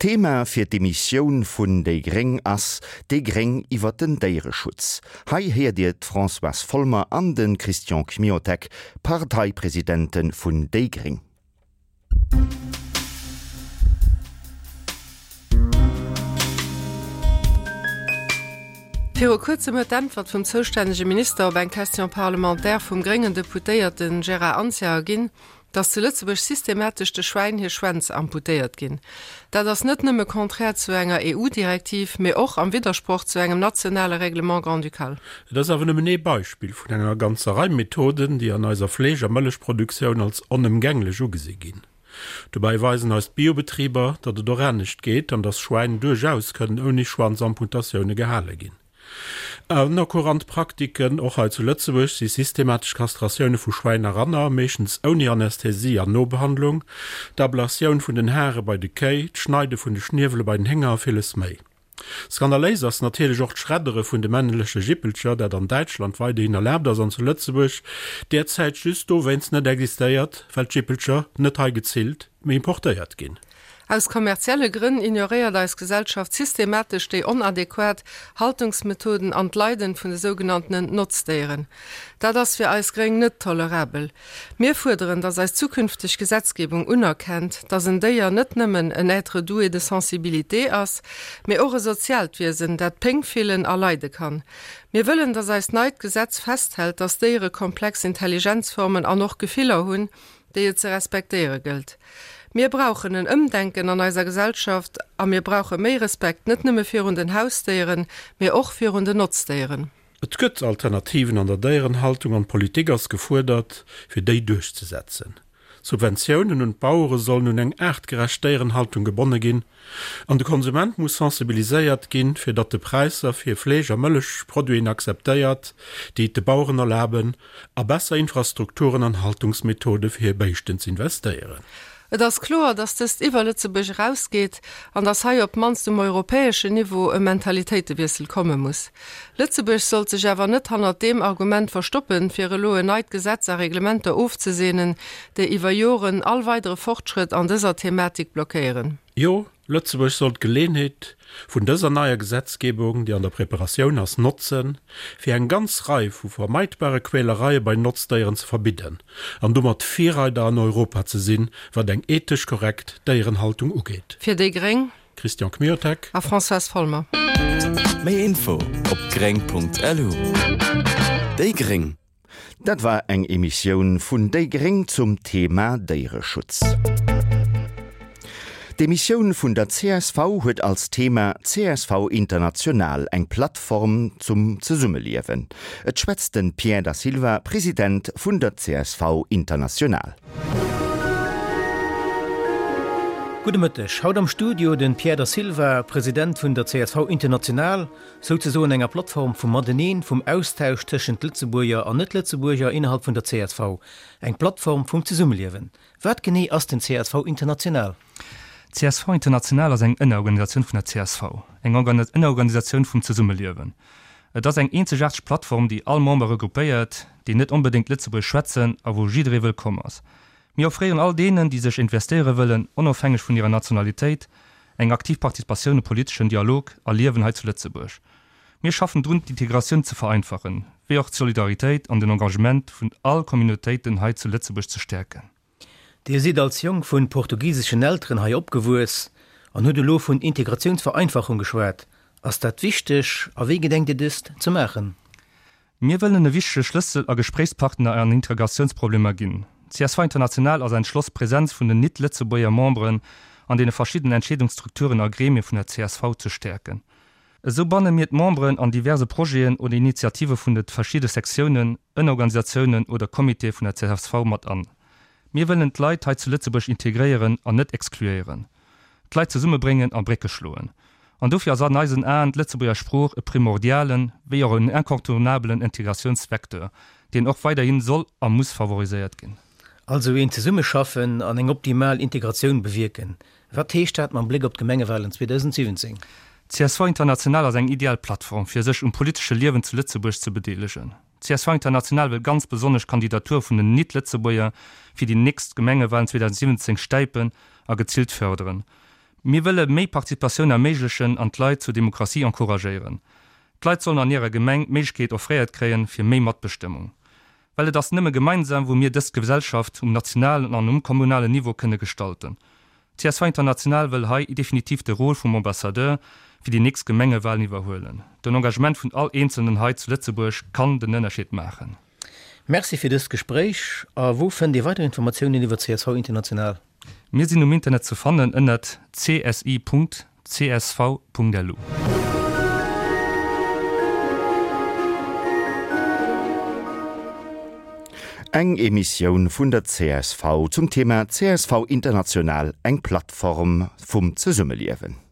D'Thema fir d'Emissioun vun déi gréng ass Déi gréng iwwer den Déiereschutz. Hei héiert Dir d'Françoise Folmer an de Christian Kmiotek, Parteipresidente vun déi gréng. Viru kuerzem huet d'Äntwert vum zoustännege Minister op eng Question parlementaire vum gréngen Deputéierte Gérard Anzia erginn, dass zu Lëtzebuerg systematesch de Schwäin hir Schwänz amputéiert ginn. Dat ass net nëmme contraire zu enger EU-Direktiv, mee och am Widdersproch zu engem nationale Règlement grand-ducal. Et ass awer nëmmen ee Beispill vun enger ganzer Rei Methoden, déi an eiser Fleesch a Mëllechproduktioun als onëmgänglech ugesi ginn. Dobäi weisen eis d'Biobetriber, datt et och anescht geet an datt Schwäin duerchaus kënnen ouni Schwanzamputatioune gehale ginn. Aner courant Praktiken, och hei zu Lëtzebuerg, si systematesch Kastratioune vu Schwäin a Ranner, meeschtens ouni Anästhesie an Nobehandlung, d'Ablatioun vun den Hare bei de Kéi, d'Schneide vun de Schniewele bei den Hénger a villes méi. Skandaléis ass natierlech och d'Schreddere vun de männleche Jippelcher, dat an Däitschland weiderhin erlaabt ass an zu Lëtzebuerg derzäit just dowéinst net existéiert, well d'Jippelcher net hei gezillt, mee importéiert ginn. Aus kommerzielle Grënn ignoréiert eis Gesellschaft systematesch déi onadequat Haltungsmethoden an d'Leiden vun de sougenanntenen Notzdéieren. Dat ass fir eis Gréng net tolerabel. Mir fuerderen, dass eis zukünfteg Gesetzgebung unerkennt, dass en Déier net nëmmen en être doué de sensibilité ass, mee och e soziaalt Wiesen, dat Péng fillen a leide kann. Mir wëllen, dass eist neit Gesetz festhält, dass Déiere komplex Intelligenzformen an och Gefiller hunn, déi et ze respektéiere gëllt. Mir brauchen en Ëmdenken an eiser Gesellschaft a mir brauche méi Respekt, net nëmme virun den Hausdéieren, mee och virun den Notzdéieren. Et gëtt Alternativen an der Déierenhaltung an d'Politik ass gefuerdert, fir déi duerchzesetzen. D'Subventiounen un d'Bauere sollen un eng aartgerecht Déierenhaltung gebonne ginn an de Konsument muss sensibiliséiert ginn, fir datt de Präisser fir Fleesch a Mëllechproduiten akzeptéiert, déi et de Baueren erlaben, a besser Infrastrukturen an Haltungsmethode fir hir Béischten z'investéieren. Et ass kloer, dass dëst iwwer Lëtzebuerg erausgeet an dass hei op d'mannst um europäeschen Niveau e Mentalitéitewiessel komme muss. Lëtzebuerg sollt sech awer net hannert deem Argument verstoppen, fir elo en neit Gesetz a Reglementer ofzeseenen, déi iwwer Joren all weidere Fortschrëtt an dëser Thematik blockéieren. Jo, Lëtzebuerg soll d'Geleenheet vun dëser neier Gesetzgebung, déi an der Preparatioun ass, notzen, fir eng ganz Rei vu vermeidbare Quälereie bei Notzdéieren ze verbidden an domat Virreider an Europa ze sinn, wat eng ethesch korrekt Déierenhaltung ugeet. Fir déi gréng. Christian Kmiotek. A Françoise Folmer. Méi Info op gréng.lu. Déi gréng. Dat war eng Emissioun vun déi gréng zum Thema Déiereschutz. D'Emissioun vun der csv huet als Thema csv International, eng Plattform zum Zesummeliewen. Et schwätzt de Pierre Da Silva, President vun der csv International. Gudde Mëtteg. Haut am Studio den Pierre Da Silva, President vun der csv International. Souzesoen enger Plattform vum Mateneen, vum Austausch tëschent Lëtzebuerger an Net-Lëtzebuerger innerhalb vun der csv. Eng Plattform vum Zesummeliewen. Wat genee ass den csv International? Csv International ass eng Ënnerorganisatioun vun der csv, eng Ënnerorganisatioun vum Zesummeliewen. Et ass eng eenzegaarteg Plattform, déi all Member regroupéiert, déi net onbedéngt Lëtzebuergesch schwätzen a wou jidderee wëllkomm ass. Mir offréieren all deenen, déi sech investéiere wëllen, onofhängeg vun hirer Nationalitéit, eng aktiv Participatioun um politeschen Dialog a Liewen hei zu Lëtzebuerg. Mir schaffen drun, d'Integratioun ze vereinfachen, wéi och d'Solidaritéit an den Engagement vun all Communautéiten hei zu Lëtzebuerg ze stäerken. Dir sidd als Jong vun portugiseschen Elteren hei opgewuess an hutt elo vun Integratiounsvereinfachung geschwat. Ass dat wichteg a wéi gedenkt Dir dëst ze maachen? Mir wëllen e wichtege Schlëssel a Gespréichspartner an Integratiounsproblemer ginn. Csv International ass entschloss, d'Präsenz vun den nit-Lëtzebuerger Memberen an deene verschiddenen Entscheedungsstrukturen a Gremie vun der csv ze stäerken. Esou banne mir d'Memberen an diverse Projeten oder Initiative vun de verschidde Sektiounen, Ënnerorganisatiounen oder Comitéë vun der csv mat an. Mir wëllen d'Leit hei zu Lëtzebuerg integréieren an net exkluéieren. D'Leit zesummebréngen a Brécke schloen. An dofir ass an eisen Aen d'Lëtzebuerger Sprooch e primordialen, wéi och en incontournabelen Integratiounsvecteur, deen och weiderhin soll a muss favoriséiert ginn. Also een Zesummeschaffen an eng optimal Integratioun bewierken. Wat heescht dat mam Bléck op d'Gemengewalen 2017? Csv International ass eng ideal Plattform, fir sech um politesche Liewen zu Lëtzebuerg ze bedeelegen. Csv International wëll ganz besonnesch d'Kandidatur vun den Nit-Lëtzebuerger fir déi nächst Gemengewalen 2017 stäipen a gezilt fërderen. Mir wëlle méi Participatioun erméiglechen an d'Leit zur Demokratie encouragéieren. D'Leit sollen an hirer Gemeng d'Méiglechkeet offréiert kréien fir méi Matbestëmmung. Well et ass nëmme gemeinsam wou mir dës Gesellschaft um nationalen an um kommunalen Niveau kënne gestalten. Csv International wëll hei definitiv de Rôle vum Ambassadeur fir déi nächst Gemengewahlen iwwerhuelen. Den Engagement vun all Eenzelnen hei zu Lëtzebuerg kann den Ënnerscheed maachen. Merci fir dëst Gespréich. A wou fënnt ee weider Informatiounen iwwer csv International? Mir sinn um Internet ze fannen ënnert csi.csv.lu. Eng Emissioun vun der csv zum Thema csv International, eng Plattform vum Zesummeliewen.